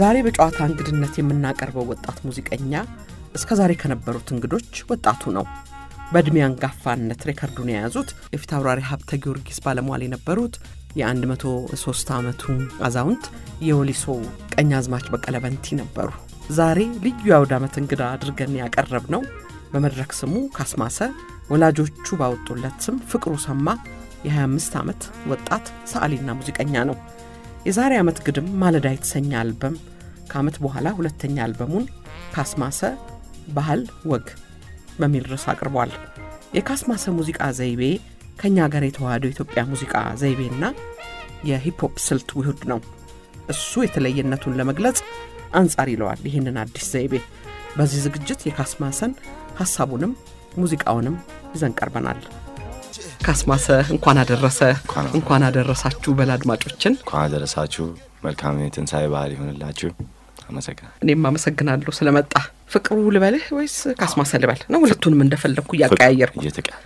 ዛሬ በጨዋታ እንግድነት የምናቀርበው ወጣት ሙዚቀኛ እስከዛሬ ከነበሩት እንግዶች ወጣቱ ነው። በእድሜ አንጋፋነት ሬከርዱን የያዙት የፊት አውራሪ ሀብተ ጊዮርጊስ ባለሟል የነበሩት የ103 ዓመቱ አዛውንት የወሊሶ ቀኛዝማች በቀለ በንቲ ነበሩ። ዛሬ ልዩ የአውደ ዓመት እንግዳ አድርገን ያቀረብነው በመድረክ ስሙ ካስማሰ ወላጆቹ ባወጡለት ስም ፍቅሩ ሰማ የ25 ዓመት ወጣት ሰዓሊና ሙዚቀኛ ነው። የዛሬ ዓመት ግድም ማለዳ የተሰኘ አልበም ከዓመት በኋላ ሁለተኛ አልበሙን ካስማሰ ባህል ወግ በሚል ርዕስ አቅርቧል። የካስማሰ ሙዚቃ ዘይቤ ከኛ ጋር የተዋሃደው ኢትዮጵያ ሙዚቃ ዘይቤና የሂፕ ሆፕ ስልት ውህድ ነው። እሱ የተለየነቱን ለመግለጽ አንጻር ይለዋል ይህንን አዲስ ዘይቤ። በዚህ ዝግጅት የካስማሰን ሐሳቡንም ሙዚቃውንም ይዘን ቀርበናል። ካስማሰ እንኳን አደረሳችሁ በላድማጮችን እንኳን አደረሳችሁ። መልካም የትንሳኤ በዓል ይሁንላችሁ። አመሰግናለሁ። እኔም አመሰግናለሁ ስለመጣ። ፍቅሩ ልበልህ ወይስ ካስማሰ ልበል ነው? ሁለቱንም እንደፈለኩ ያቀያየርኩ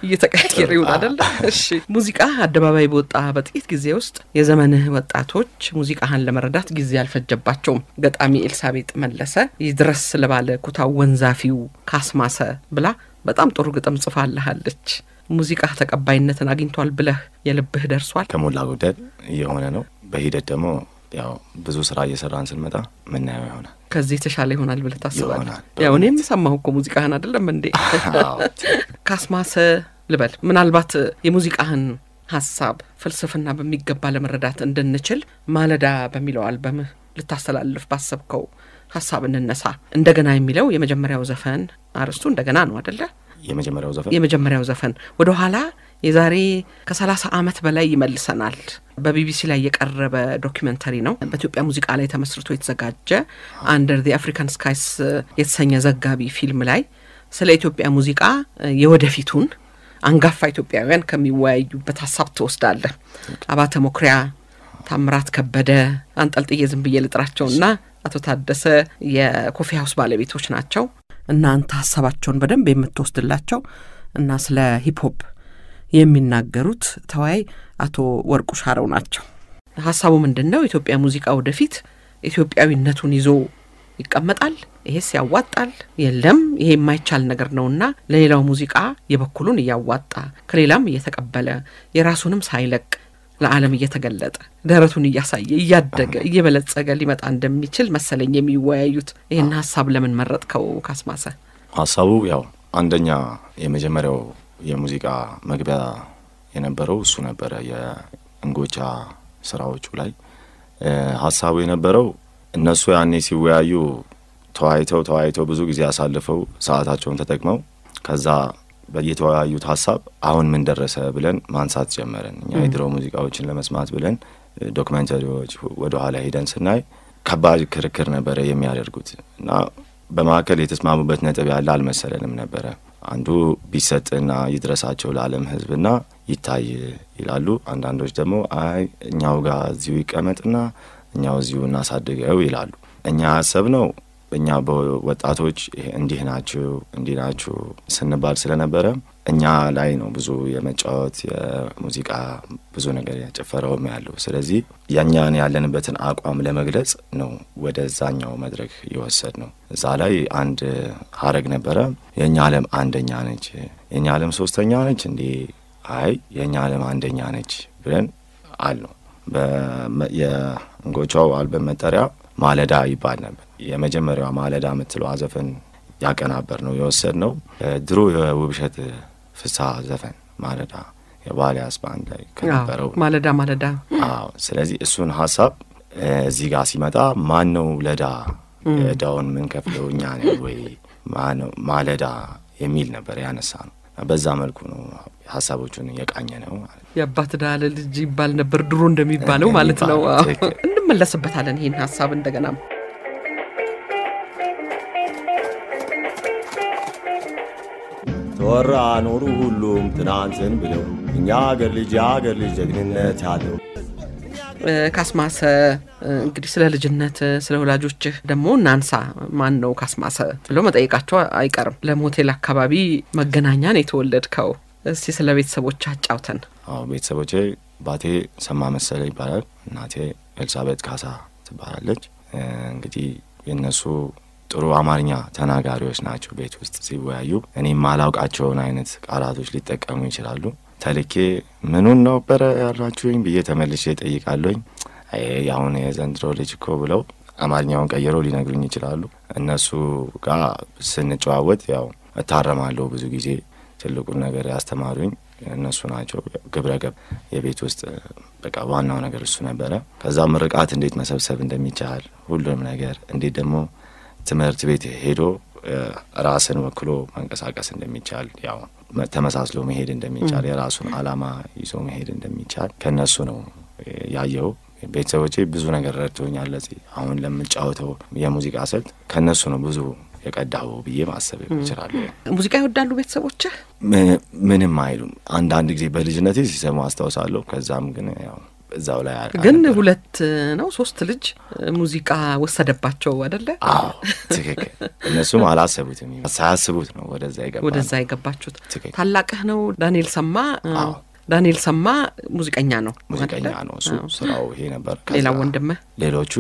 እየተቀያየረ ይሁን አይደል? እሺ። ሙዚቃ አደባባይ በወጣ በጥቂት ጊዜ ውስጥ የዘመንህ ወጣቶች ሙዚቃህን ለመረዳት ጊዜ አልፈጀባቸውም። ገጣሚ ኤልሳቤጥ መለሰ ይድረስ ለባለ ኩታው ወንዛፊው ካስማሰ ብላ በጣም ጥሩ ግጥም ጽፋለሃለች። ሙዚቃ ተቀባይነትን አግኝቷል ብለህ የልብህ ደርሷል? ከሞላ ጎደል የሆነ ነው። በሂደት ደግሞ ያው ብዙ ስራ እየሰራን ስንመጣ ምናየው ይሆናል። ከዚህ ተሻለ ይሆናል ብለህ ታስባለህ? ያው እኔም ሰማሁ እኮ ሙዚቃህን አይደለም እንዴ? ካስማሰ ልበል። ምናልባት የሙዚቃህን ሐሳብ ፍልስፍና በሚገባ ለመረዳት እንድንችል ማለዳ በሚለው አልበምህ ልታስተላልፍ ባሰብከው ሐሳብ እንነሳ። እንደገና የሚለው የመጀመሪያው ዘፈን አርስቱ እንደገና ነው አይደለ? የመጀመሪያው ዘፈን ወደ ኋላ የዛሬ ከ30 ዓመት በላይ ይመልሰናል። በቢቢሲ ላይ የቀረበ ዶክመንተሪ ነው። በኢትዮጵያ ሙዚቃ ላይ ተመስርቶ የተዘጋጀ አንደር ዘ አፍሪካን ስካይስ የተሰኘ ዘጋቢ ፊልም ላይ ስለ ኢትዮጵያ ሙዚቃ የወደፊቱን አንጋፋ ኢትዮጵያውያን ከሚወያዩበት ሐሳብ ተወስዳለህ። አባተ ሞክሪያ፣ ታምራት ከበደ፣ አንጠልጥዬ ዝም ብዬ ልጥራቸውና አቶ ታደሰ የኮፊ ሃውስ ባለቤቶች ናቸው። እናንተ ሐሳባቸውን በደንብ የምትወስድላቸው እና ስለ ሂፕ ሆፕ የሚናገሩት ተዋይ አቶ ወርቁ ሻረው ናቸው። ሐሳቡ ምንድነው? ኢትዮጵያ ሙዚቃ ወደፊት ኢትዮጵያዊነቱን ይዞ ይቀመጣል? ይሄስ ያዋጣል? የለም ይሄ የማይቻል ነገር ነውና ለሌላው ሙዚቃ የበኩሉን ያዋጣ ከሌላም እየተቀበለ የራሱንም ሳይለቅ ለዓለም እየተገለጠ ደረቱን እያሳየ እያደገ እየበለጸገ ሊመጣ እንደሚችል መሰለኝ የሚወያዩት። ይሄን ሐሳብ ለምን መረጥከው ካስማሰ? ሐሳቡ ያው አንደኛ የመጀመሪያው የሙዚቃ መግቢያ የነበረው እሱ ነበረ። የእንጎቻ ስራዎቹ ላይ ሐሳቡ የነበረው እነሱ ያኔ ሲወያዩ ተዋይተው ብዙ ጊዜ አሳልፈው ሰዓታቸውን ተጠቅመው ከዛ በየተወያዩት ሐሳብ አሁን ምን ደረሰ ብለን ማንሳት ጀመረን። እኛ የድሮ ሙዚቃዎችን ለመስማት ብለን ዶክመንተሪዎች ወደ ኋላ ሄደን ስናይ ከባድ ክርክር ነበረ የሚያደርጉት እና በማከል የተስማሙበት ነጥብ ያለ አልመሰለንም ነበረ። አንዱ ቢሰጥና ይድረሳቸው ለዓለም ህዝብና ይታይ ይላሉ። አንዳንዶች ደግሞ አይ እኛው ጋር እዚሁ ይቀመጥና እኛው እዚሁ እናሳድገው ይላሉ። እኛ ያሰብነው እኛ በወጣቶች እንዲህ ናችሁ ስንባል ስለነበረ እኛ ላይ ነው ብዙ የመጫወት የሙዚቃ ብዙ ነገር ያጨፈረውም ያለው። ስለዚህ ያኛን ያለንበትን አቋም ለመግለጽ ነው ወደዛኛው መድረክ ይወሰድነው። እዛ ላይ አንድ ሀረግ ነበረ። የኛ ዓለም አንደኛ ነች፣ የኛ ዓለም ሶስተኛ ነች እንዴ? አይ የኛ ዓለም አንደኛ ነች ብለን አልነው። የእንጎቻው አልበም መጠሪያ ማለዳ ይባል ነበር። የመጀመሪያው ማለዳ የምትለው ዘፈን ያቀናበር ነው የወሰድነው ድሮ የውብሸት ፍስሐ ዘፈን ማለዳ የባሊያስ ባንድ ላይ ከነበረው ማለዳ። አዎ። ስለዚህ እሱን ሐሳብ እዚህ ጋር ሲመጣ ማን ነው ለዳ ዳውን ምን ከፍለው እኛ ነን ወይ ማለዳ የሚል ነበር ያነሳነው። በዛ መልኩ ነው ሐሳቦቹን የቃኘ ነው ማለት ነው። የአባት ዳለ ልጅ ይባል ነበር ድሮ እንደሚባለው ማለት ነው። እንመለስበታለን ይሄን ሐሳብ እንደገና። ተወራ ኖሩ ሁሉም ትናንትን ብለው እኛ አገር ልጅ ጀግንነት ያለው ካስማሰ እንግዲህ ስለ ልጅነት ስለ ወላጆችህ ደግሞ እናንሳ። ማን ነው ካስማሰ ብሎ መጠየቃቸው አይቀርም። ለሞቴል አካባቢ መገናኛን የተወለድከው እስቲ ስለ ቤተሰቦች አጫውተን። ቤተሰቦቼ ባቴ ሰማ መሰለ ይባላል። እናቴ ኤልሳቤጥ ካሳ ትባላለች። እንግዲህ የነሱ ጥሩ አማርኛ ተናጋሪዎች ናቸው። ቤት ውስጥ ሲወያዩ እኔ ማላውቃቸውን አይነት ቃላቶች ሊጠቀሙ ይችላሉ። ተልኬ ምኑን ነበር ያላችሁኝ ብዬ ተመልሼ ጠይቃለሁኝ። ያሁን የዘንድሮ ልጅ እኮ ብለው አማርኛውን ቀይረው ሊነግሩኝ ይችላሉ። እነሱ ጋር ስንጨዋወት ያው እታረማለሁ። ብዙ ጊዜ ትልቁን ነገር ያስተማሩኝ እነሱ ናቸው። ግብረገብ የቤት ውስጥ በቃ ዋናው ነገር እሱ ነበረ። ከዛ ምርቃት እንዴት መሰብሰብ እንደሚቻል ሁሉም ነገር እንዴት ደግሞ ትምህርት ቤት ሄዶ ራስን ወክሎ መንቀሳቀስ እንደሚቻል ያው ተመሳስሎ መሄድ እንደሚቻል የራሱን አላማ ይዞ መሄድ እንደሚቻል ከነሱ ነው ያየው። ቤተሰቦቼ ብዙ ነገር ረድተውኛል። ለዚህ አሁን ለምጫወተው የሙዚቃ ስልት ከነሱ ነው ብዙ የቀዳው ብዬ ማሰብ ይችላል። ሙዚቃ ይወዳሉ ቤተሰቦች? ምንም አይሉም። አንዳንድ ጊዜ በልጅነቴ ሲሰሙ አስታውሳለሁ። ከዛም ግን ያው እዛው ላይ ግን 2 ነው 3 ልጅ ሙዚቃ ወሰደባቸው አይደለ? አዎ ትክክል። እነሱም አላሰቡትም። ሳያስቡት ነው ወደዛ የገባችሁት። ታላቅህ ነው ዳንኤል ሰማ? ዳንኤል ሰማ ሙዚቀኛ ነው እሱ ስራው ይሄ ነበር። ሌላ ወንድምህ? ሌሎቹ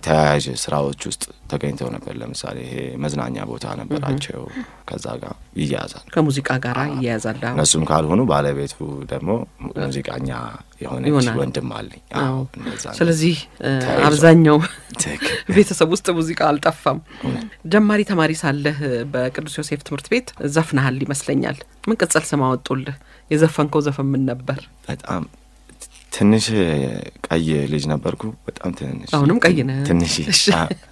ተያያዥ ስራዎች ውስጥ ተገኝተው ነበር። ለምሳሌ ይሄ መዝናኛ ቦታ ነበራቸው። ከዛ ጋር ይያዛል፣ ከሙዚቃ ጋር ይያዛል። እነሱም ካልሆኑ ባለቤቱ ደግሞ ሙዚቀኛ የሆነች ወንድም አለኝ። ስለዚህ አብዛኛው ቤተሰብ ውስጥ ሙዚቃ አልጠፋም። ጀማሪ ተማሪ ሳለህ በቅዱስ ዮሴፍ ትምህርት ቤት ዘፍነሃል ይመስለኛል። ምን ቅጽል ስም አወጡልህ? የዘፈንከው ዘፈን ምን ነበር? በጣም ትንሽ ቀይ ልጅ ነበርኩ። በጣም ትንሽ። አሁንም ቀይ ነህ? ትንሽ።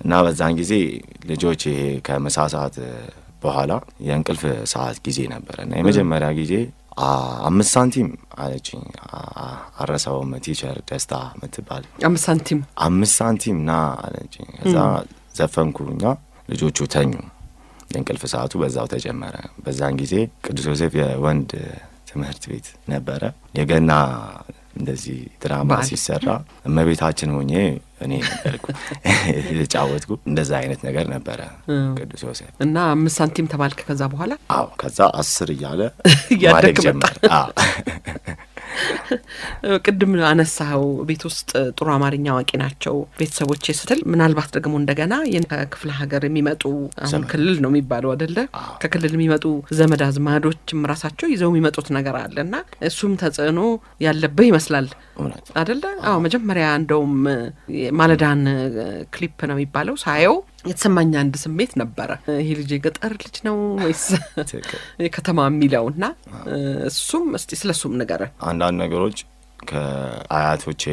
እና በዛን ጊዜ ልጆች ይሄ ከምሳ ሰዓት በኋላ የእንቅልፍ ሰዓት ጊዜ ነበር እና የመጀመሪያ ጊዜ 5 ሳንቲም አለችኝ። አረሳውም። ቲቸር ደስታ ምትባል 5 ሳንቲም ና አለችኝ። ከዛ ዘፈንኩኛ። ልጆቹ ተኙ። የእንቅልፍ ሰዓቱ በዛው ተጀመረ። በዛን ጊዜ ቅዱስ ዮሴፍ የወንድ ትምህርት ቤት ነበረ። የገና እንደዚህ ድራማ ሲሰራ እመቤታችን ሆኜ እኔ ነበርኩ የተጫወትኩ። እንደዛ አይነት ነገር ነበረ ቅዱስ ዮሴፍ። እና 5 ሳንቲም ተባልክ ከዛ በኋላ? አዎ ከዛ 10 እያለ ማደግ ጀመረ። ቅድም አነሳው ቤት ውስጥ ጥሩ አማርኛ አዋቂ ናቸው ቤተሰቦቼ ስትል ምናልባት ደግሞ እንደገና የክፍለ ሀገር የሚመጡ አሁን ክልል ነው የሚባለው አይደለ? ከክልል የሚመጡ ዘመድ አዝማዶችም ራሳቸው ይዘው የሚመጡት ነገር አለና እሱም ተጽዕኖ ያለበት ይመስላል አይደለ? አዎ መጀመሪያ እንደውም ማለዳን ክሊፕ ነው የሚባለው ሳየው የተሰማኝ አንድ ስሜት ነበረ። ይሄ ልጅ የገጠር ልጅ ነው ወይስ ከተማ የሚለውና እሱም እስቲ ስለሱም ነገር አንዳንድ ነገሮች ከአያቶቼ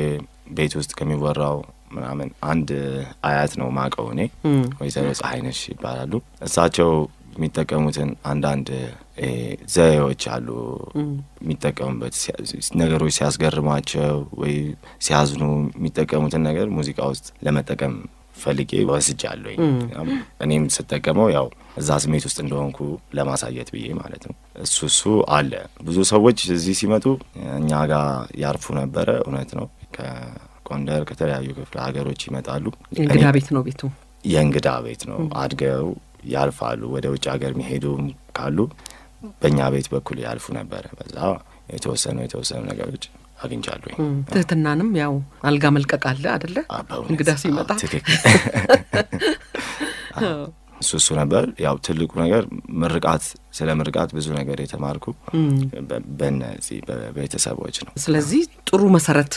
ቤት ውስጥ ከሚወራው ምናምን አንድ አያት ነው ማቀው እኔ ወይዘሮ ፀሐይነሽ ይባላሉ። እሳቸው የሚጠቀሙትን አንዳንድ ዘዬዎች አሉ የሚጠቀሙበት ነገሮች ሲያስገርማቸው ወይ ሲያዝኑ የሚጠቀሙትን ነገር ሙዚቃ ውስጥ ለመጠቀም ፈልጌ ወስጃለሁ። እኔም ስጠቀመው ያው እዛ ስሜት ውስጥ እንደሆንኩ ለማሳየት ብዬ ማለት ነው። እሱ አለ። ብዙ ሰዎች እዚህ ሲመጡ እኛ ጋር ያርፉ ነበረ። እውነት ነው። ከጎንደር ከተለያዩ ክፍለ ሀገሮች ይመጣሉ። የእንግዳ ቤት ነው ቤቱ። የእንግዳ ቤት ነው። አድገው ያልፋሉ። ወደ ውጭ ሀገር የሚሄዱ ካሉ በእኛ ቤት በኩል ያልፉ ነበረ። በዛ የተወሰኑ ነገሮች አግኝቻለሁ። ትህትናንም ያው አልጋ መልቀቅ አለ አይደለ? እንግዳ ሲመጣ እሱ ነበር ያው ትልቁ ነገር። ስለ ምርቃት ብዙ ነገር የተማርኩ በእነዚህ በቤተሰቦች ነው። ስለዚህ ጥሩ መሰረት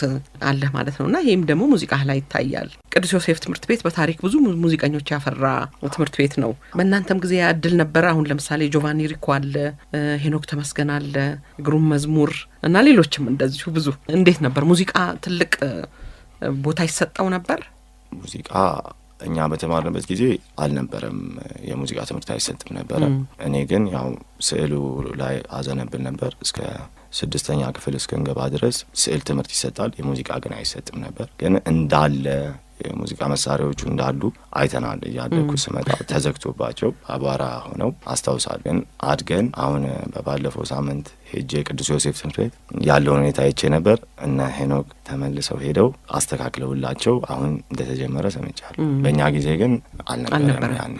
አለ ማለት ነውና ይሄም ደግሞ ሙዚቃ ላይ ይታያል። ቅዱስ ዮሴፍ ትምህርት ቤት በታሪክ ብዙ ሙዚቀኞች ያፈራ ትምህርት ቤት ነው። በእናንተም ጊዜ ያድል ነበር። አሁን ለምሳሌ ጆቫኒ ሪኮ አለ፣ ሄኖክ ተመስገን አለ፣ ግሩም መዝሙር እና ሌሎችም እንደዚሁ ብዙ። እንዴት ነበር ሙዚቃ ትልቅ ቦታ ይሰጣው ነበር? ሙዚቃ እኛ በተማርንበት ጊዜ አልነበረም። የሙዚቃ ትምህርት አይሰጥም ነበር። እኔ ግን ያው ስዕሉ ላይ አዘነብል ነበር። እስከ 6ኛ ክፍል እስከንገባ ድረስ ስዕል ትምህርት ይሰጣል። የሙዚቃ ግን አይሰጥም ነበር። ግን እንዳለ የሙዚቃ መሳሪያዎቹ እንዳሉ አይተናል። ያለኩ ስመጣ ተዘግቶባቸው አቧራ ሆነው አስታውሳለሁ። ግን አድገን አሁን በባለፈው ሳምንት ሄጄ ቅዱስ ዮሴፍ ትምህርት ቤት ያለውን ሁኔታ አይቼ ነበር። እነ ሄኖክ ተመልሰው ሄደው አስተካክለውላቸው አሁን እንደተጀመረ ሰምቻለሁ። በእኛ ጊዜ ግን አልነበረም።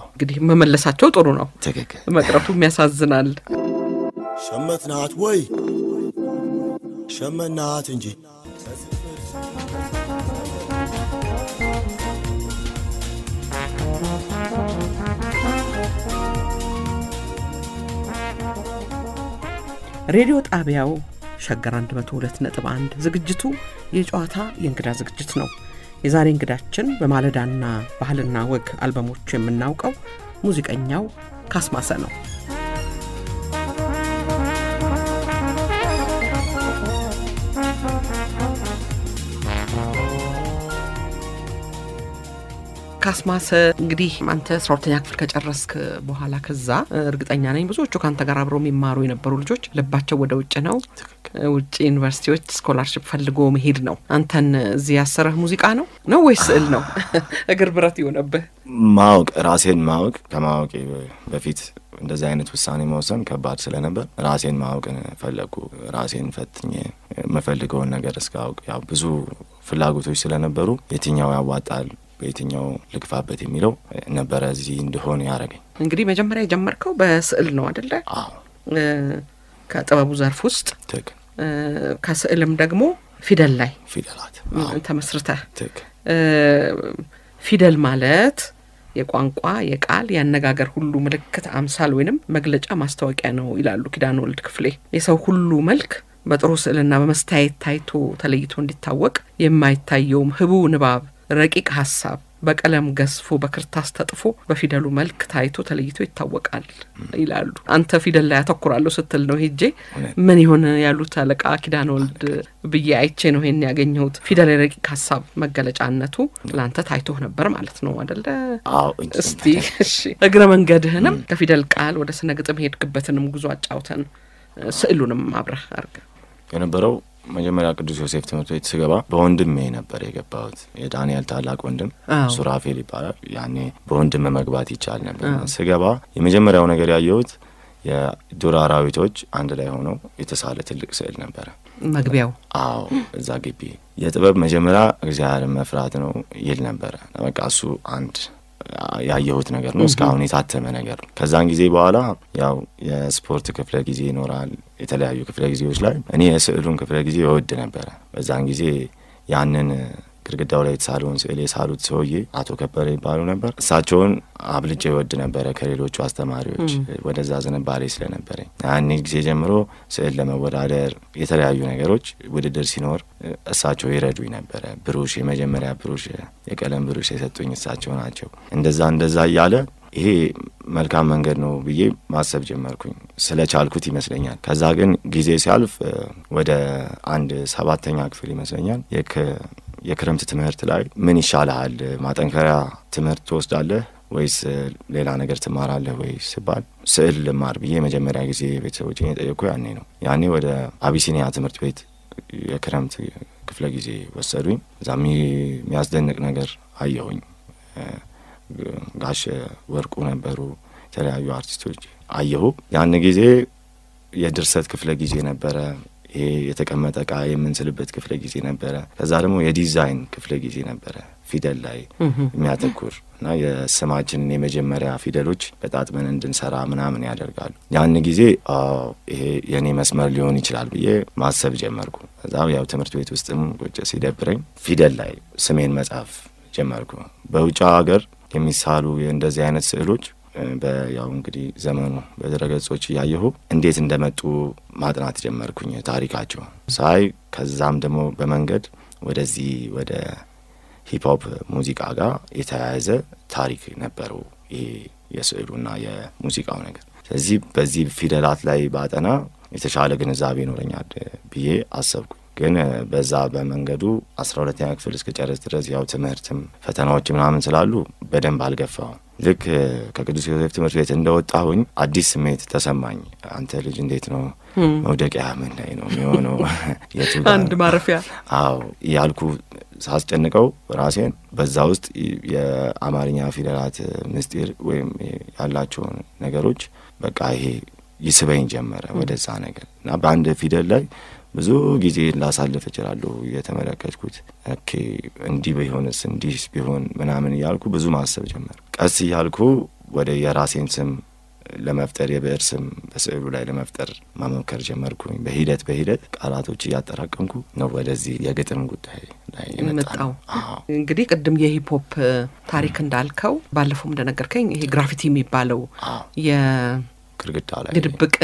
እንግዲህ መመለሳቸው ጥሩ ነው። ትክክል። መቅረቱ የሚያሳዝናል። ሸመትናት ወይ ሸመናት እንጂ ሬዲዮ ጣቢያው ሸገር 102.1 ዝግጅቱ የጨዋታ የእንግዳ ዝግጅት ነው። የዛሬ እንግዳችን በማለዳና ባህልና ወግ አልበሞች የምናውቀው ሙዚቀኛው ካስማሰ ነው። ካስማሰ እንግዲህ አንተ 12ኛ ክፍል ከጨረስክ በኋላ ከዛ እርግጠኛ ነኝ ብዙዎቹ ካንተ ጋር አብረው የሚማሩ የነበሩ ልጆች ልባቸው ወደ ውጭ ነው። ውጭ ዩኒቨርሲቲዎች ስኮላርሺፕ ፈልጎ መሄድ ነው። አንተን እዚህ ያሰረህ ሙዚቃ ነው ወይስ ስዕል ነው? እግር ብረት ይሆነብህ? ማወቅ ራሴን ማወቅ ከማወቅ በፊት እንደዚህ አይነት ውሳኔ መወሰን ከባድ ስለነበር ራሴን ማወቅን ፈለኩ። ራሴን ፈትኜ መፈልገውን ነገር እስካውቅ ያው ብዙ ፍላጎቶች ስለነበሩ የትኛው ያዋጣል በየትኛው ልግፋበት የሚለው ነበር እዚህ እንደሆነ ያረጋኝ። እንግዲህ መጀመሪያ የጀመርከው በስዕል ነው አይደለ? አዎ። ከጥበቡ ዘርፍ ውስጥ ትክ ከስዕልም ደግሞ ፊደል ላይ ፊደላት ተመስርተህ ትክ ፊደል ማለት የቋንቋ የቃል ያነጋገር ሁሉ ምልክት አምሳል ወይንም መግለጫ ማስተዋቂያ ነው ይላሉ ኪዳነ ወልድ ክፍሌ። የሰው ሁሉ መልክ በጥሩ ስዕልና በመስታየት ታይቶ ተለይቶ እንዲታወቅ የማይታየውም ህቡ ንባብ ረቂቅ ሐሳብ በቀለም ገስፎ በክርታስ ተጥፎ በፊደሉ መልክ ታይቶ ተለይቶ ይታወቃል ይላሉ። አንተ ፊደል ላይ አተኩራለሁ ስትል ነው ሄጄ ምን ይሆን ያሉት አለቃ ኪዳነ ወልድ ብዬ አይቼ ነው ይሄን ያገኘሁት። ፊደል ረቂቅ ሐሳብ መገለጫነቱ ላንተ ታይቶ ነበር ማለት ነው አይደለ? አዎ። እስቲ እሺ እግረ መንገድህንም ከፊደል ቃል ወደ ስነ ግጥም ሄድክበትንም ጉዞ አጫውተን ስዕሉንም አብረህ አርገ የነበረው መጀመሪያ ቅዱስ ዮሴፍ ትምህርት ቤት ስገባ በወንድሜ ነበር የገባሁት። የዳንኤል ታላቅ ወንድም ሱራፌል ይባላል። ያኔ በወንድም መግባት ይቻል ነበር። ስገባ የመጀመሪያው ነገር ያየሁት የዱር አራዊቶች አንድ ላይ ሆነው የተሳለ ትልቅ ስዕል ነበር መግቢያው። አዎ። እዛ ግቢ የጥበብ መጀመሪያ እግዚአብሔርን መፍራት ነው ይል ነበር። በቃ እሱ አንድ ያየሁት ነገር ነው። እስካሁን የታተመ ነገር ነው። ከዛን ጊዜ በኋላ ያው የስፖርት ክፍለ ጊዜ ይኖራል። የተለያዩ ክፍለ ጊዜዎች ላይ እኔ የስዕሉን ክፍለ ጊዜ እወድ ነበር። በዛን ጊዜ ያንን ግድግዳው ላይ የተሳለውን ስዕል የሳሉት ሰውዬ አቶ ከበረ ይባሉ ነበር። እሳቸውን አብልጬ እወድ ነበር ከሌሎቹ አስተማሪዎች ወደዛ ዝንባሌ ስለነበረኝ። ያን ጊዜ ጀምሮ ስዕል ለመወዳደር የተለያዩ ነገሮች ውድድር ሲኖር እሳቸው ይረዱኝ ነበር። ብሩሽ የመጀመሪያ ብሩሽ የቀለም ብሩሽ የሰጡኝ እሳቸው ናቸው። እንደዛ እያለ ይሄ መልካም መንገድ ነው ብዬ ማሰብ ጀመርኩኝ ስለቻልኩት ይመስለኛል። ከዛ ግን ጊዜ ሲያልፍ ወደ 7ኛ ክፍል ይመስለኛል የክረምት ትምህርት ላይ ምን ይሻላል ማጠንከሪያ ትምህርት ትወስዳለህ ወይስ ሌላ ነገር ትማራለህ ወይስ ሲባል ስዕል ልማር ብዬ መጀመሪያ ጊዜ ቤተሰቦቼን ጠየቁ። ያኔ ወደ አቢሲኒያ ትምህርት ቤት የክረምት ክፍለ ጊዜ ወሰዱኝ። እዛም የሚያስደንቅ ነገር አየሁኝ። ጋሽ ወርቁ ነበሩ፣ የተለያዩ አርቲስቶች አየሁ። ያን ጊዜ የድርሰት ክፍለ ጊዜ ነበረ። ይሄ የተቀመጠ ዕቃ የምንስልበት ክፍለ ጊዜ ነበረ። ከዛ ደግሞ የዲዛይን ክፍለ ጊዜ ነበረ ፊደል ላይ የሚያተኩር እና የስማችንን የመጀመሪያ ፊደሎች በጣጥመን እንድንሰራ ምናምን ያደርጋሉ። ያን ጊዜ ይሄ የኔ መስመር ሊሆን ይችላል ብዬ ማሰብ ጀመርኩ። ከዛ ያው ትምህርት ቤት ውስጥም ቁጭ ሲደብረኝ ፊደል ላይ ስሜን መጻፍ ጀመርኩ። በውጭ ሀገር የሚሳሉ እንደዚህ አይነት ስዕሎች በያው እንግዲህ ዘመኑ በድረገጾች ያየሁ እንዴት እንደመጡ ማጥናት ጀመርኩኝ ታሪካቸው ሳይ። ከዛም ደግሞ በመንገድ ወደዚህ ወደ ሂፕ ሆፕ ሙዚቃ ጋር የተያያዘ ታሪክ ነበረው ይሄ የስዕሉና የሙዚቃው ነገር። ስለዚህ በዚህ ፊደላት ላይ ባጠና የተሻለ ግንዛቤ ይኖረኛል ብዬ አሰብኩ። ግን በዛ በመንገዱ 12ኛ ክፍል እስከጨረስ ድረስ ያው ትምህርትም ፈተናዎች ምናምን ስላሉ በደንብ አልገፋውም። ልክ ከቅዱስ ዮሴፍ ትምህርት ቤት እንደወጣሁኝ አዲስ ስሜት ተሰማኝ። አንተ ልጅ እንዴት ነው መውደቂያ ምን ላይ ነው የሚሆነው? አንድ ማረፊያ አዎ ያልኩ ሳስጨንቀው ራሴን በዛ ውስጥ የአማርኛ ፊደላት ምስጢር ወይም ያላቸው ነገሮች በቃ ይሄ ይስበኝ ጀመረ ወደዛ ነገር እና በአንድ ፊደል ላይ ብዙ ጊዜ ላሳልፍ እችላለሁ የተመለከትኩት። ኦኬ እንዲህ ቢሆንስ እንዲህ ቢሆን ምናምን ያልኩ ብዙ ማሰብ ጀመር። ቀስ ያልኩ ወደ የራሴን ስም ለመፍጠር የብዕር ስም በስዕሉ ላይ ለመፍጠር ማመከር ጀመርኩኝ። በሂደት ቃላቶች እያጠራቀምኩ ነው ወደዚህ የግጥም ጉዳይ ላይ የመጣው። እንግዲህ ቅድም የሂፕ ሆፕ ታሪክ እንዳልከው ባለፈው እንደነገርከኝ ይሄ ግራፊቲ የሚባለው ግድግዳ ላይ ድብቅ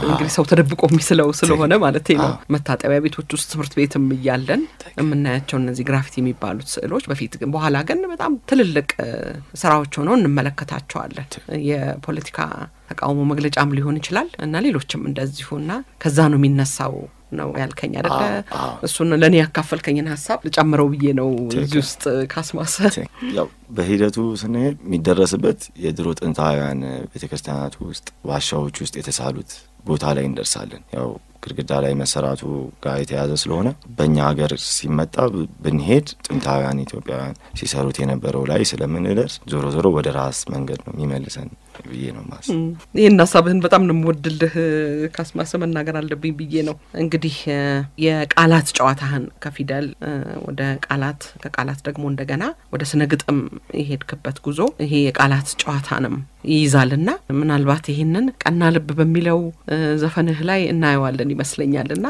እንግዲህ ሰው ተደብቆ የሚስለው ስለሆነ ማለት ነው። መታጠቢያ ቤቶች ውስጥ ትምህርት ቤትም እያለን የምናያቸው እነዚህ ግራፊቲ የሚባሉት ስዕሎች በፊት ግን በኋላ ግን በጣም ትልልቅ ስራዎች ሆነው እንመለከታቸዋለን። የፖለቲካ ተቃውሞ መግለጫም ሊሆን ይችላል እና ሌሎችም እንደዚሁና ከዛ ነው የሚነሳው ነው ያልከኝ አይደለ? እሱን ለኔ ያካፈልከኝን ሐሳብ ልጨምረው ብዬ ነው እዚህ ውስጥ ካስማሰ። ያው በሂደቱ ስንሄድ የሚደረስበት የድሮ ጥንታውያን ቤተክርስቲያናት ውስጥ ዋሻዎች ውስጥ የተሳሉት ቦታ ላይ እንደርሳለን። ያው ግድግዳ ላይ መሰራቱ ጋር የተያዘ ስለሆነ በእኛ ሀገር ሲመጣ ብንሄድ ጥንታውያን ኢትዮጵያውያን ሲሰሩት የነበረው ላይ ስለምንደርስ ዞሮ ወደ ራስ መንገድ ነው የሚመልሰን ብዬ ነው ማስ ይሄን ሐሳብህን በጣም ነው የምወድልህ ካስማሰ መናገር አለብኝ ብዬ ነው። እንግዲህ የቃላት ጨዋታህን ከፊደል ወደ ቃላት ከቃላት ደግሞ እንደገና ወደ ስነ ግጥም የሄድክበት ጉዞ ይሄ የቃላት ጨዋታንም ይይዛልና ምናልባት ይሄንን ቀና ልብ በሚለው ዘፈንህ ላይ እናየዋለን ይመስለኛልና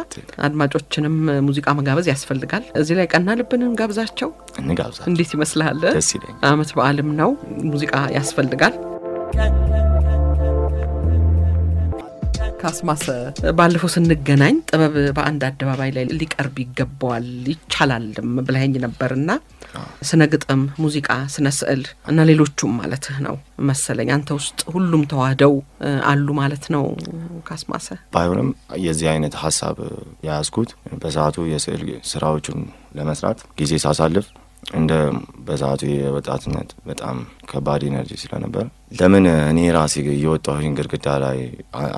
አድማጮችንም ሙዚቃ መጋበዝ ያስፈልጋል። እዚህ ላይ ቀና ልብንም ጋብዛቸው እንጋብዛቸው። እንዴት ይመስልሃል? ደስ ይለኛል። አመት በዓልም ነው ሙዚቃ ያስፈልጋል። ካስማሰ ባለፈው ስንገናኝ ጥበብ በአንድ አደባባይ ላይ ሊቀርብ ይገባዋል ይቻላልም ብለኸኝ ነበርና ስነ ግጥም፣ ሙዚቃ፣ ስነ ስዕል እና ሌሎችም ማለትህ ነው መሰለኝ አንተ ውስጥ ሁሉም ተዋህደው አሉ ማለት ነው ካስማሰ። ባይሆንም የዚህ አይነት ሐሳብ ያያዝኩት በሰዓቱ የስዕል ስራዎችን ለመስራት ጊዜ ሳሳልፍ እንደ በዛቱ የወጣትነት በጣም ከባድ ኢነርጂ ስለነበር ለምን እኔ ራሴ እየወጣሁኝ ግድግዳ ላይ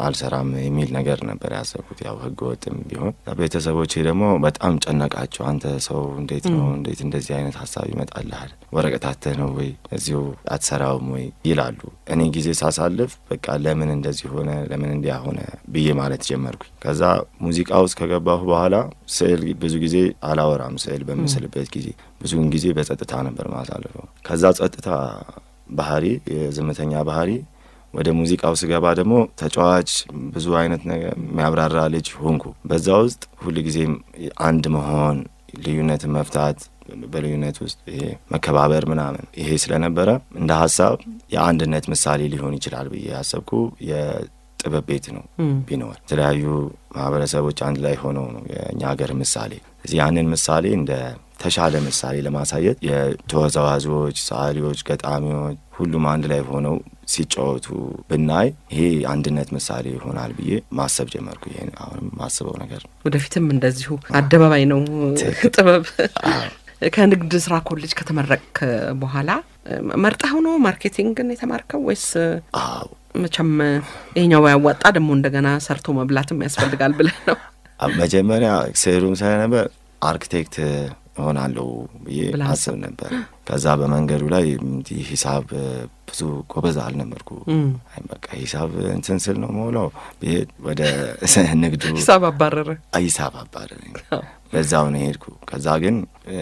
አልሰራም የሚል ነገር ነበር ያሰብኩት። ያው ህግ ወጥም ቢሆን ቤተሰቦቼ ደግሞ በጣም ጨነቃቸው። አንተ ሰው እንዴት ነው እንዴት እንደዚህ አይነት ሐሳብ ይመጣልሃል? ወረቀታተህ ነው ወይ እዚሁ አትሰራውም ወይ ይላሉ። እኔ ጊዜ ሳሳልፍ በቃ ለምን እንደዚህ ሆነ ለምን እንዲያ ሆነ ብዬ ማለት ጀመርኩኝ። ከዛ ሙዚቃ ውስጥ ከገባሁ በኋላ ስዕል ብዙ ጊዜ አላወራም። ስዕል በምስልበት ጊዜ ብዙውን ጊዜ በጸጥታ ነበር ማሳልፈው። ከዛ ጸጥታ ባህሪ የዝምተኛ ባህሪ ወደ ሙዚቃው ስገባ ደግሞ ተጫዋች ብዙ አይነት ነገር የሚያብራራ ልጅ ሆንኩ። በዛ ውስጥ ሁሉ ጊዜ አንድ መሆን ልዩነትን መፍታት በልዩነት ውስጥ ይሄ መከባበር ምናምን ይሄ ስለነበረ እንደ ሐሳብ የአንድነት ምሳሌ ሊሆን ይችላል ብዬ ያሰብኩ የጥበብ ቤት ነው ቢኖር የተለያዩ ማህበረሰቦች አንድ ላይ ሆነው ነው የኛ ሀገር ምሳሌ። እዚህ ያንን ምሳሌ እንደ ተሻለ ምሳሌ ለማሳየት የተወዛዋዦች፣ ሰዓሊዎች፣ ገጣሚዎች ሁሉም አንድ ላይ ሆነው ሲጫወቱ ብናይ ይሄ አንድነት ምሳሌ ይሆናል ብዬ ማሰብ ጀመርኩ። ይሄ አሁን ማስበው ነገር ወደፊትም እንደዚሁ አደባባይ ነው ጥበብ። ከንግድ ስራ ኮሌጅ ከተመረቅክ በኋላ መርጠህ ነው ማርኬቲንግን የተማርከው ወይስ? መቼም ይሄኛው ያዋጣ ደግሞ እንደገና ሰርቶ መብላትም ያስፈልጋል ብለህ ነው? መጀመሪያ ስዕሉም ስለነበር አርኪቴክት ሆናለሁ ብዬ አስብ ነበር። ከዛ በመንገዱ ላይ ሂሳብ ብዙ ጎበዝ አልነበርኩ። አይ በቃ ሂሳብ እንትን ስል ነው ሞላው ወደ ንግዱ ሂሳብ አባረረ። በዛው ነው ሄድኩ። ከዛ ግን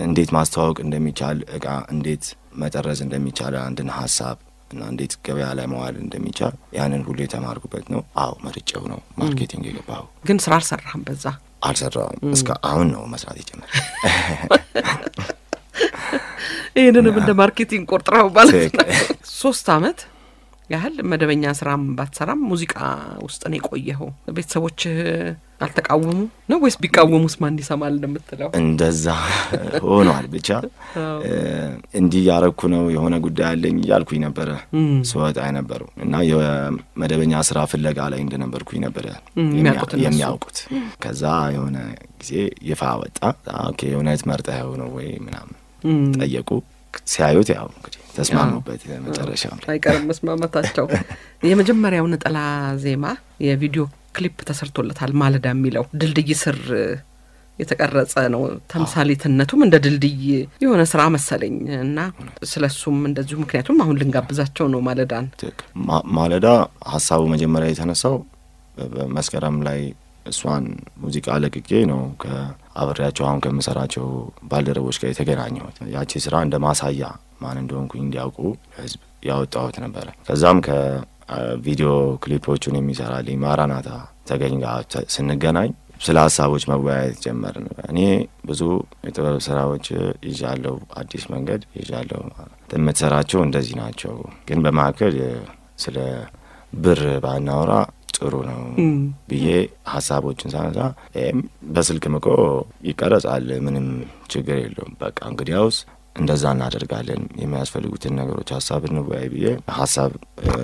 እንዴት ማስተዋወቅ እንደሚቻል እቃ እንዴት መጠረዝ እንደሚቻል አንድን ሐሳብ እና እንዴት ገበያ ላይ መዋል እንደሚቻል ያንን ሁሉ የተማርኩበት ነው። አዎ መርጬው ነው ማርኬቲንግ የገባው። ግን ስራ አልሰራህም? በዛ አልሰራም። እስከ አሁን ነው መስራት የጀመረ። ይሄንንም እንደ ማርኬቲንግ ቆርጥራው ማለት ነው። 3 አመት ያህል መደበኛ ስራም ባትሰራም ሙዚቃ ውስጥ ነው የቆየኸው። ቤተሰቦች አልተቃወሙ ነው ወይስ ቢቃወሙስ ማን ይሰማል እንደምትለው? እንደዛ ሆኗል። ብቻ እንዲህ ያረኩ ነው የሆነ ጉዳይ አለኝ ያልኩኝ ነበር ሰውታ አይነበሩ እና የመደበኛ ስራ ፍለጋ ላይ እንደነበርኩኝ ነበር የሚያውቁት። ከዛ የሆነ ጊዜ ይፋ ወጣ። ኦኬ የሆነች መርጠው ነው ወይ ምናምን ጠየቁ። ሲያዩት ያው እንግዲህ ተስማሙበት። መጨረሻው አይቀርም መስማማታቸው። የመጀመሪያው ነጠላ ዜማ የቪዲዮ ክሊፕ ተሰርቶለታል። ማለዳ የሚለው ድልድይ ስር የተቀረጸ ነው። ተምሳሌትነቱም እንደ ድልድይ የሆነ ስራ መሰለኝ እና ስለሱም እንደዚሁ ምክንያቱም አሁን ልንጋብዛቸው ነው ማለዳን። ማለዳ ሐሳቡ መጀመሪያ የተነሳው በመስከረም ላይ እሷን ሙዚቃ ለቅቄ ነው ከአብሬያቸው አሁን ከምሰራቸው ባልደረቦች ጋር የተገናኘሁት። ያቺ ስራ እንደ ማሳያ ማን እንደሆንኩኝ እንዲያውቁ ህዝብ ያወጣሁት ነበር። ከዛም ቪዲዮ ክሊፖቹን የሚሰራልኝ ማራናታ ተገኝ ጋር ስንገናኝ ስለ ሀሳቦች መወያየት ጀመርን። እኔ ብዙ የጥበብ ስራዎች ይዣለሁ፣ አዲስ መንገድ ይዣለሁ፣ የምትሰራቸው እንደዚህ ናቸው፣ ግን በማከል ስለ ብር ባናወራ ጥሩ ነው ብዬ ሀሳቦችን ሳነሳ በስልክ ምቆ ይቀረጻል፣ ምንም ችግር የለውም፣ በቃ እንግዲያውስ እንደዛ እናደርጋለን፣ የሚያስፈልጉትን ነገሮች ሀሳብ እንወያይ ብዬ ሀሳብ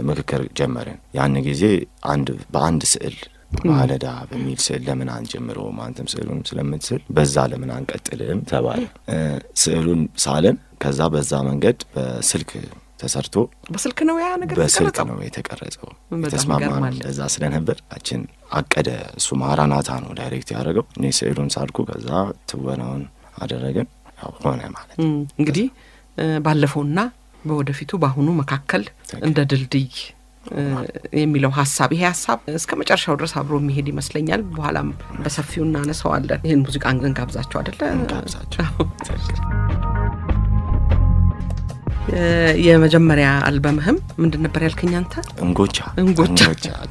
ምክክር ጀመርን። ያን ጊዜ በአንድ ስዕል ማለዳ በሚል ስዕል ለምን አንጀምረውም፣ አንተም ስዕሉን ስለምትስል በዛ ለምን አንቀጥልም ተባለ። ስዕሉን ሳለን ከዛ በዛ መንገድ በስልክ ተሰርቶ በስልክ ነው ያ ነገር በስልክ ነው የተቀረጸው። ተስማማን። እንደዛ ስለነበር አቀደ። እሱ ማራናታ ነው ዳይሬክት ያደረገው፣ እኔ ስዕሉን ሳልኩ ከዛ ትወናውን አደረገን። ያው ሆነ ማለት እንግዲህ ባለፈውና በወደፊቱ ባሁኑ መካከል እንደ ድልድይ የሚለው ሐሳብ ይሄ ሐሳብ እስከ መጨረሻው ድረስ አብሮ የሚሄድ ይመስለኛል። በኋላም በሰፊው እናነሳዋለን። ይሄን ሙዚቃ እንጋብዛቸው አይደለ? እንጋብዛቸው። የመጀመሪያ አልበምህም ምንድን ነበር ያልከኝ አንተ? እንጎቻ።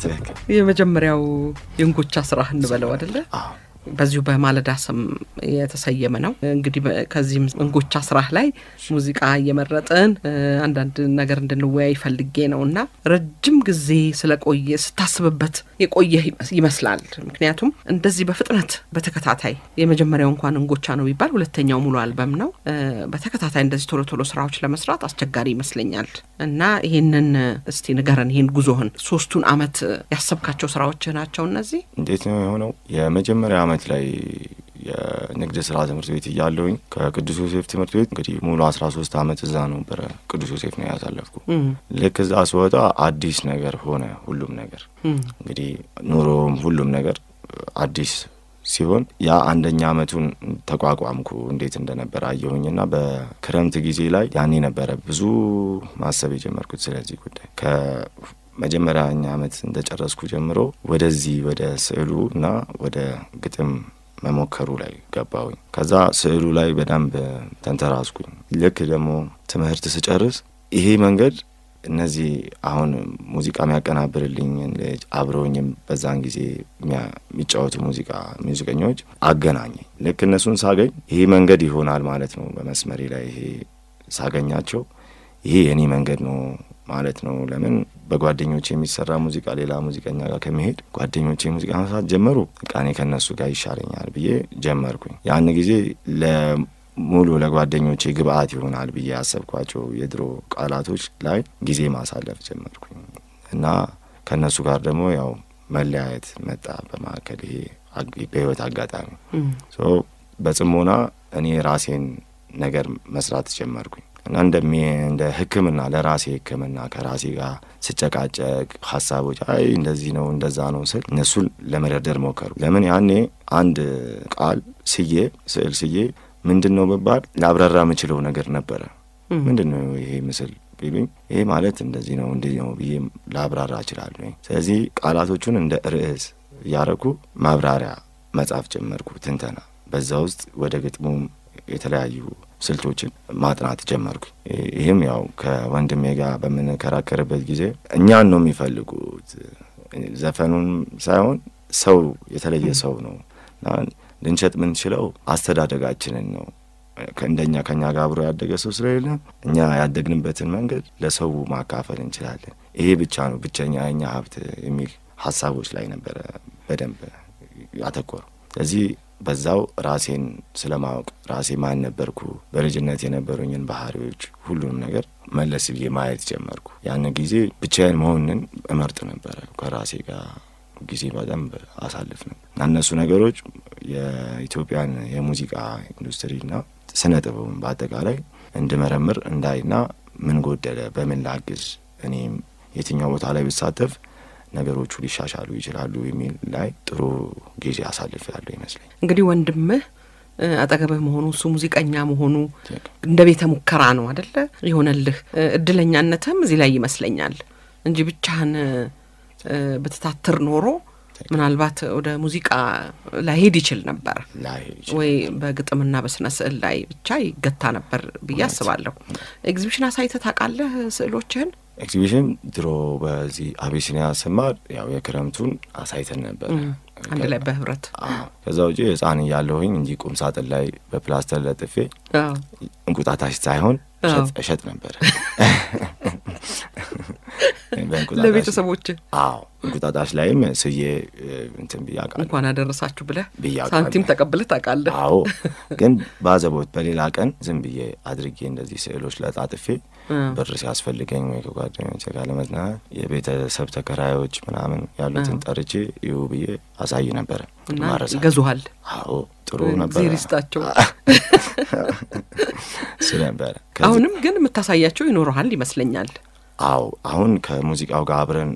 ትክክል። የመጀመሪያው የእንጎቻ ስራህ እንበለው አይደለ? አዎ። በዚሁ በማለዳ ስም የተሰየመ ነው። እንግዲህ ከዚህም እንጎቻ ስራህ ላይ ሙዚቃ እየመረጥን አንዳንድ ነገር እንድንወያይ ፈልጌ ነውና ረጅም ጊዜ ስለቆየ ስታስብበት የቆየ ይመስላል። ምክንያቱም እንደዚህ በፍጥነት በተከታታይ የመጀመሪያው እንኳን እንጎቻ ነው ቢባል ሁለተኛው ሙሉ አልበም ነው። በተከታታይ እንደዚህ ቶሎ ቶሎ ስራዎች ለመስራት አስቸጋሪ ይመስለኛል እና ይሄንን እስቲ ንገረን፣ ይሄን ጉዞህን 3ቱን አመት ያሰብካቸው ስራዎች ናቸው እነዚህ? እንዴት ነው የሆነው? የመጀመሪያ አመት ላይ የንግድ ስራ ትምህርት ቤት እያለሁኝ ከቅዱስ ዮሴፍ ትምህርት ቤት እንግዲህ ሙሉ 13 አመት እዛ ነበር ቅዱስ ዮሴፍ ነው ያሳለፍኩ። ልክ እዛ ስወጣ አዲስ ነገር ሆነ ሁሉም ነገር። እንግዲህ ኑሮም ሁሉም ነገር አዲስ ሲሆን ያ አንደኛ አመቱን ተቋቋምኩ እንዴት እንደነበር አየሁኝና በክረምት ጊዜ ላይ ያኔ ነበረ ብዙ ማሰብ የጀመርኩት ስለዚህ ጉዳይ። ከመጀመሪያኛ አመት እንደጨረስኩ ጀምሮ ወደዚህ ወደ ስዕሉና ወደ ግጥም መሞከሩ ላይ ገባሁኝ። ከዛ ስዕሉ ላይ በደንብ ተንተራስኩኝ። ልክ ደግሞ ትምህርት ስጨርስ ይሄ መንገድ እነዚህ አሁን ሙዚቃ የሚያቀናብርልኝ አብረውኝም በዛን ጊዜ የሚጫወቱ ሙዚቀኞች አገናኘኝ። ልክ እነሱን ሳገኝ ይሄ መንገድ ይሆናል ማለት ነው። በመስመሬ ላይ ይሄ ሳገኛቸው ይሄ የኔ መንገድ ነው ማለት ነው። ለምን በጓደኞቼ የሚሰራ ሙዚቃ ሌላ ሙዚቀኛ ጋር ከመሄድ ጓደኞቼ ሙዚቃ መስራት ጀመሩ፣ በቃ እኔ ከነሱ ጋር ይሻለኛል ብዬ ጀመርኩኝ። ያን ጊዜ ሙሉ ለጓደኞቼ ግብአት ይሆናል ብዬ ያሰብኳቸው የድሮ ቃላቶች ላይ ጊዜ ማሳለፍ ጀመርኩኝ እና ከነሱ ጋር ደግሞ ያው መለያየት መጣ በማከል ይሄ በህይወት አጋጣሚ በጽሞና እኔ ራሴን ነገር መስራት ጀመርኩኝ እና እንደ ህክምና ለራሴ ህክምና ከራሴ ጋር ስጨቃጨቅ ሐሳቦች አይ እንደዚህ ነው እንደዛ ነው ስል እነሱን ለመደርደር ሞከሩ። ለምን ያኔ አንድ ቃል ስዕል ስዬ ምንድነው በባል ላብራራ የምችለው ነገር ነበረ። ምንድነው ይሄ ምስል ቢሉኝ ይሄ ማለት እንደዚህ ነው እንዴ ነው ብዬ ላብራራ እችላለሁ። ስለዚህ ቃላቶቹን እንደ ርዕስ ያረኩ ማብራሪያ መጻፍ ጀመርኩ፣ ትንተና። በዛ ውስጥ ወደ ግጥሙም የተለያዩ ስልቶችን ማጥናት ጀመርኩ። ይሄም ያው ከወንድሜ ጋር በመነከራከርበት ጊዜ እኛን ነው የሚፈልጉት ዘፈኑን ሳይሆን ሰው የተለየ ሰው ነው ልንሸጥ ምን ችለው አስተዳደጋችንን ነው። ከኛ ጋር አብሮ ያደገ ሰው ስለሌለ እኛ ያደግንበትን መንገድ ለሰው ማካፈል እንችላለን። ይሄ ብቻ ነው ብቸኛ የኛ ሀብት የሚል ሐሳቦች ላይ ነበር በደንብ ያተኮረው። ስለዚህ በዛው ራሴን ስለማወቅ ራሴ ማን ነበርኩ፣ በልጅነት የነበሩኝን ባህሪዎች ሁሉንም ነገር መለስ ብዬ ማየት ጀመርኩ። ያን ጊዜ ብቻዬን መሆንን እመርጥ ነበር። ከራሴ ጋር ጊዜ በደንብ አሳልፍ ነበር። እነሱ ነገሮች የኢትዮጵያን የሙዚቃ ኢንዱስትሪና ስነ ጥበብን በአጠቃላይ እንድመረምር እንዳይና ምን ጎደለ፣ በምን ላግዝ፣ እኔም የትኛው ቦታ ላይ ብሳተፍ ነገሮቹ ሊሻሻሉ ይችላሉ የሚል ላይ ጥሩ ጊዜ አሳልፍ ያለው ይመስለኝ። እንግዲህ ወንድምህ አጠገብህ መሆኑ እሱ ሙዚቀኛ መሆኑ እንደ ቤተ ሙከራ ነው አይደለ ይሆነልህ። እድለኛነትም እዚህ ላይ ይመስለኛል እንጂ ብቻህን በተታተር ኖሮ ምናልባት ወደ ሙዚቃ ላይ ሄድ ይችል ነበር ወይ በግጥምና በስነ ስዕል ላይ ብቻ ይገታ ነበር ብዬ አስባለሁ። ኤግዚቢሽን አሳይተህ ታውቃለህ ስዕሎችህን? ኤግዚቢሽን ድሮ በዚህ አቢሲኒያ ስማር ያው የክረምቱን አሳይተን ነበር አንድ ላይ በህብረት ከዛ ውጪ ህፃን ያለሁኝ እንጂ ቁም ሳጥን ላይ በፕላስተር ለጥፌ እንቁጣጣሽ ሳይሆን እሸጥ ነበር ለቤተሰቦች እንቁጣጣሽ ላይም ስዬ እንትን ቢያቃል እንኳን አደረሳችሁ ብለህ ሳንቲም ተቀብለህ ታውቃለህ ግን ባዘቦት በሌላ ቀን ዝም ብዬ አድርጌ እንደዚህ ስዕሎች ለጣጥፌ ብር ሲያስፈልገኝ ወይ ከጓደኞቼ ጋር ለመዝናናት የቤተሰብ ተከራዮች ምናምን ያሉትን ጠርቼ ይው ብዬ አሳይ ነበር ማረሳ ይገዙሃል ጥሩ ነበር ዚሪስታቸው ስለነበር አሁንም ግን የምታሳያቸው ይኖርሃል ይመስለኛል አሁን ከሙዚቃው ጋር አብረን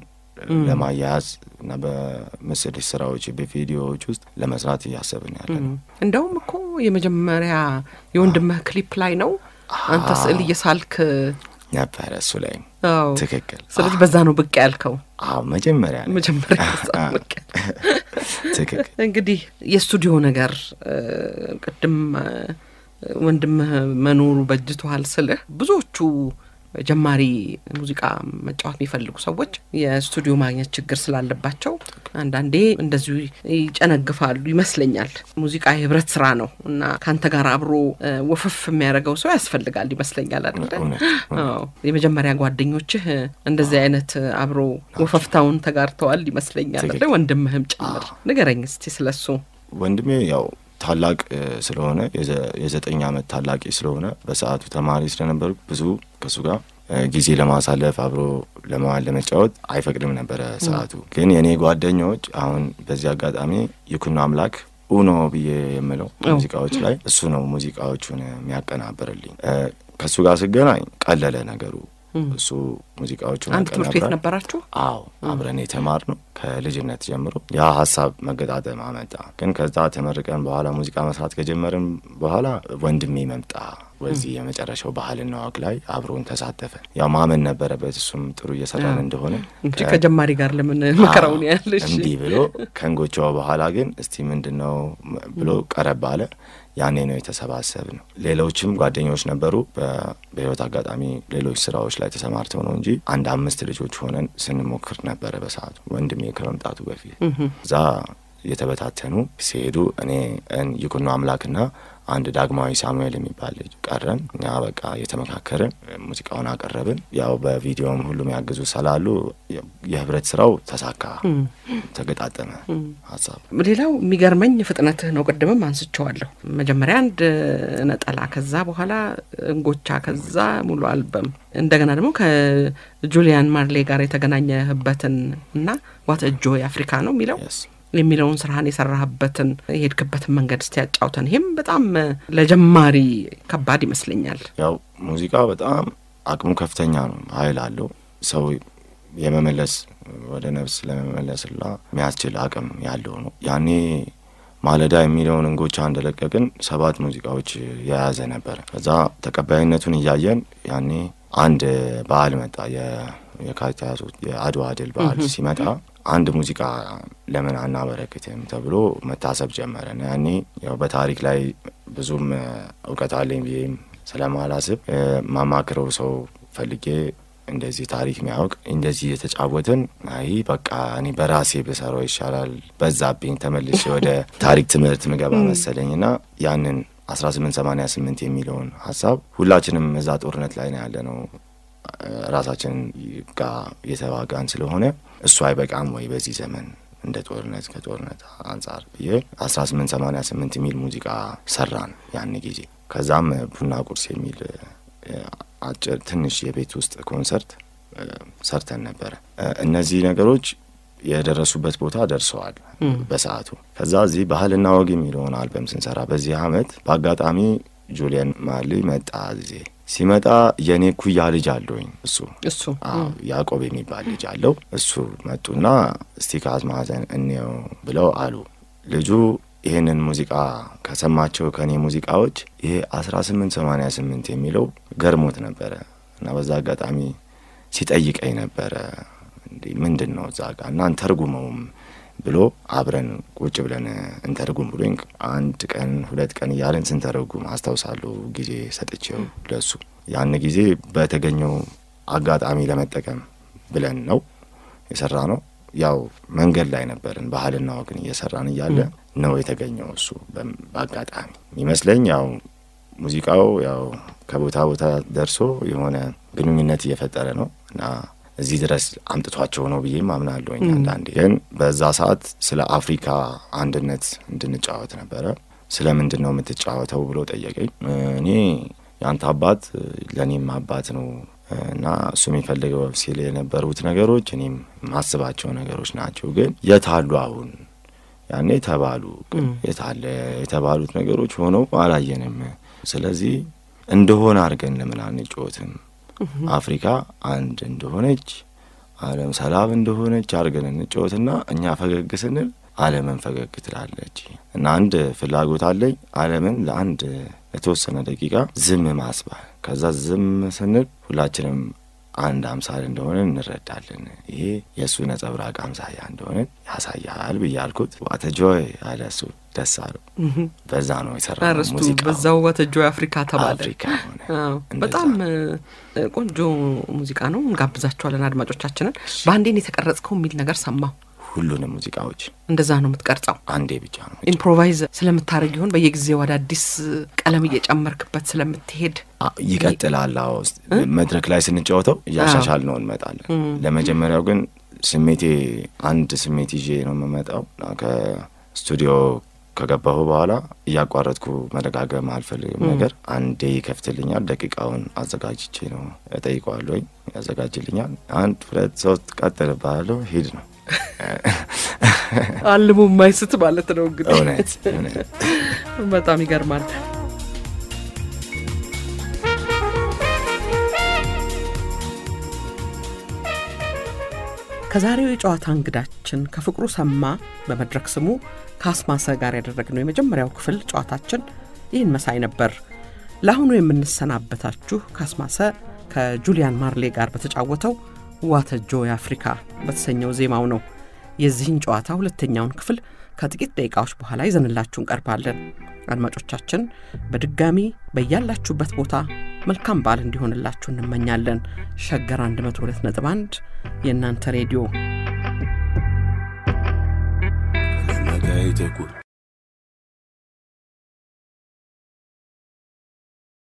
ለማያያዝ እና በምስል ስራዎች በቪዲዮዎች ውስጥ ለመስራት ያሰብን ያለን እንደውም እኮ የመጀመሪያ የወንድምህ ክሊፕ ላይ ነው አንተ ስዕል እየሳልክ ነበር እሱ ላይ ትክክል ስለዚህ በዛ ነው ብቅ ያልከው መጀመሪያ ብቅ ትክክል እንግዲህ የስቱዲዮ ነገር ቅድም ወንድምህ መኖሩ በጅቷል ስልህ ብዙዎቹ ጀማሪ ሙዚቃ መጫወት የሚፈልጉ ሰዎች የስቱዲዮ ማግኘት ችግር ስላለባቸው አንዳንዴ እንደዚሁ ይጨነግፋሉ ይመስለኛል ሙዚቃ የህብረት ስራ ነው እና ካንተ ጋር አብሮ ወፈፍ የሚያደርገው ሰው ያስፈልጋል ይመስለኛል አይደል የመጀመሪያ ጓደኞችህ እንደዚህ አይነት አብሮ ወፈፍታውን ተጋርተዋል ይመስለኛል አይደል ወንድምህም ጭምር ንገረኝ እስቲ ስለሱ ወንድሜ ያው ታላቅ ስለሆነ የ9 አመት ታላቂ ስለሆነ በሰዓቱ ተማሪ ስለነበር ብዙ ከሱ ጋር ጊዜ ለማሳለፍ አብሮ ለመጫወት አይፈቅድም ነበር ሰዓቱ ግን የኔ ጓደኞች አሁን በዚህ አጋጣሚ ይኩኖ አምላክ ኡኖ ብዬ የምለው ሙዚቃዎች ላይ እሱ ነው ሙዚቃዎቹን የሚያቀናብርልኝ ከሱ ጋር ስገናኝ ቀለለ ነገሩ እሱ ሙዚቃዎቹን አንድ ትምህርት ቤት ነበራችሁ አብረን የተማርነው ከልጅነት ጀምሮ ያ ሐሳብ መገጣጠም አመጣ ግን ከዛ ተመርቀን በኋላ ሙዚቃ መስራት ከጀመርን በኋላ ወንድሜ መምጣ ወዚህ የመጨረሻው ባህልና ወግ ላይ አብሮን ተሳተፈ ያው ማመን ነበረበት እሱም ጥሩ እየሰራን እንደሆነ እንጂ ከጀማሪ ጋር ለምን መከራውን ያለሽ እንዴ ብሎ ከንጎቻው በኋላ ግን እስቲ ምንድነው ብሎ ቀረብ አለ ያኔ ነው የተሰባሰብ ነው ሌሎችም ጓደኞች ነበሩ በህይወት አጋጣሚ ሌሎች ስራዎች ላይ ተሰማርተው ነው እንጂ አንድ 5 ልጆች ሆነን ስንሞክር ነበር በሰዓቱ ወንድሜ ከመምጣቱ በፊት ዛ የተበታተኑ ሲሄዱ እኔ ይኩኖ አምላክና አንድ ዳግማዊ ሳሙኤል የሚባል ልጅ ቀረን እኛ በቃ የተመካከረን ሙዚቃውን አቀረብን ያው በቪዲዮም ሁሉም ያግዙ ሰላሉ የህብረት ስራው ተሳካ ተገጣጠመ ሐሳብ ሌላው የሚገርመኝ ፍጥነትህ ነው ቀደምም አንስቼዋለሁ መጀመሪያ አንድ ነጠላ ከዛ በኋላ እንጎቻ ከዛ ሙሉ አልበም እንደገና ደግሞ ከጁሊያን ማርሌ ጋር የተገናኘህበትን እና ዋት ጆይ አፍሪካ ነው የሚለውን ስራህን የሰራህበትን የሄድክበትን መንገድ እስቲ ያጫውተን ይሄም በጣም ለጀማሪ ከባድ ይመስለኛል ያው ሙዚቃ በጣም አቅሙ ከፍተኛ ነው ኃይል አለው ሰው የመመለስ ወደ ነፍስ ለመመለስላ የሚያስችል አቅም ያለው ነው ያኔ ማለዳ የሚለውን እንጎቻ እንደለቀቅን 7 ሙዚቃዎች የያዘ ነበር ከዛ ተቀባይነቱን እያየን ያኔ አንድ በዓል መጣ የካቲት የአድዋ ድል በዓል ሲመጣ አንድ ሙዚቃ ለምን አናበረክትም ተብሎ መታሰብ ጀመረ ያኔ ያው በታሪክ ላይ ብዙም ዕውቀት አለኝ ብዬም ስለማላስብ ማማክረው ሰው ፈልጌ እንደዚህ ታሪክ የሚያውቅ እንደዚህ የተጫወትን አይ በቃ እኔ በራሴ በሰራው ይሻላል በዛብኝ ተመልሼ ወደ ታሪክ ትምህርት ምገባ መሰለኝና ያንን 1888 የሚለውን ሐሳብ ሁላችንም እዛ ጦርነት ላይ ነው ያለነው ራሳችን ጋር የተዋጋን ስለሆነ እሱ አይበቃም ወይ በዚህ ዘመን እንደ ጦርነት ከጦርነት አንፃር ብዬ 1888 የሚል ሙዚቃ ሰራን ያን ጊዜ ከዛም ቡና ቁርስ የሚል አጭር ትንሽ የቤት ውስጥ ኮንሰርት ሰርተን ነበር እነዚህ ነገሮች የደረሱበት ቦታ ደርሰዋል በሰዓቱ ከዛ እዚህ ባህልና ወግ የሚለውን አልበም ስንሰራ በዚህ አመት በአጋጣሚ ጁሊያን ማርሌ መጣ እዚህ ሲመጣ የኔ ኩያ ልጅ አለኝ እሱ ያዕቆብ የሚባል ልጅ አለው እሱ መጡና እስቲ ካዝማዘን እንየው ብለው አሉ ልጁ ይሄንን ሙዚቃ ከሰማቸው ከኔ ሙዚቃዎች ይሄ 1888 የሚለው ገርሞት ነበር እና በዛ አጋጣሚ ሲጠይቀኝ ነበር እንዴ ምንድነው ዛጋ እና እንተርጉመውም ብሎ አብረን ቁጭ ብለን እንተርጉም ብሎኝ አንድ ቀን 2 ቀን ያለን ስንተርጉም አስተውሳለሁ ጊዜ ሰጥቼው ለሱ ያን ጊዜ በተገኘው አጋጣሚ ለመጠቀም ብለን ነው የሰራነው። ያው መንገድ ላይ ነበርን ባህልና ወግን እየሰራን እያለ ነው የተገኘው እሱ በአጋጣሚ ይመስለኝ። ያው ሙዚቃው ያው ከቦታ ቦታ ደርሶ የሆነ ግንኙነት እየፈጠረ ነው እና እዚህ ድረስ አምጥቷቸው ነው ብዬ ማምናለሁ። አንዳንዴ ግን በዛ ሰዓት ስለ አፍሪካ አንድነት እንድንጫወት ነበረ። ስለምንድነው የምትጫወተው ብሎ ጠየቀኝ። እኔ ያንተ አባት ለኔም አባት ነው እና እሱ የሚፈልገው ሲል የነበሩት ነገሮች እኔም ማስባቸው ነገሮች ናቸው። ግን የታሉ አሁን ያኔ ተባሉ ግን የታለ የተባሉት ነገሮች ሆነው አላየንም። ስለዚህ እንደሆነ አድርገን ለምን አንጫወትም? አፍሪካ አንድ እንደሆነች ዓለም ሰላም እንደሆነች አድርገን እንጫወትና እኛ ፈገግ ስንል ዓለምን ፈገግ ትላለች። እና አንድ ፍላጎት አለኝ ዓለምን ለአንድ ለተወሰነ ደቂቃ ዝም ማስባል። ከዛ ዝም ስንል ሁላችንም አንድ አምሳል እንደሆነ እንረዳለን። ይሄ የሱ ነጸብራቅ አምሳያ እንደሆነ ያሳያል ብያልኩት ዋተጆይ አለሱ ደሳሉ በዛ ነው የሰራው ሙዚቃ። በዛው ዋተጆይ አፍሪካ ተባለ። በጣም ቆንጆ ሙዚቃ ነው። እንጋብዛችኋለን አድማጮቻችንን። ባንዴን የተቀረጽከው የሚል ነገር ሰማሁ። ሁሉንም ሙዚቃዎች እንደዛ ነው የምትቀርጸው? አንዴ ብቻ ነው። ኢምፕሮቫይዝ ስለምታረግ ይሆን በየጊዜው አዳዲስ ቀለም እየጨመርክበት ስለምትሄድ ይቀጥላል? አዎ መድረክ ላይ ስንጫወተው ያሻሻል ነው እንመጣለን። ለመጀመሪያው ግን ስሜቴ አንድ ስሜት ይዤ ነው የምመጣው። ከስቱዲዮ ከገባሁ በኋላ እያቋረጥኩ መደጋገም አልፈልግም ነገር። አንዴ ይከፍትልኛል፣ ደቂቃውን አዘጋጅቼ ነው እጠይቀዋለሁ፣ ያዘጋጅልኛል። 1 2 3 ቀጥልባለሁ፣ ሂድ ነው አልሙ ማይስት ማለት ነው እንግዲህ። እውነት በጣም ይገርማል። ከዛሬው የጨዋታ እንግዳችን ከፍቅሩ ሰማ በመድረክ ስሙ ካስማሰ ጋር ያደረግነው የመጀመሪያው ክፍል ጨዋታችን ይህን መሳይ ነበር። ለአሁኑ የምንሰናበታችሁ ካስማሰ ከጁሊያን ማርሌ ጋር በተጫወተው ዋተጆይ አፍሪካ በተሰኘው ዜማው ነው። የዚህን ጨዋታ ሁለተኛውን ክፍል ከጥቂት ደቂቃዎች በኋላ ይዘንላችሁ እንቀርባለን። አድማጮቻችን በድጋሚ በያላችሁበት ቦታ መልካም በዓል እንዲሆንላችሁ እንመኛለን። ሸገር 102.1 የእናንተ ሬዲዮ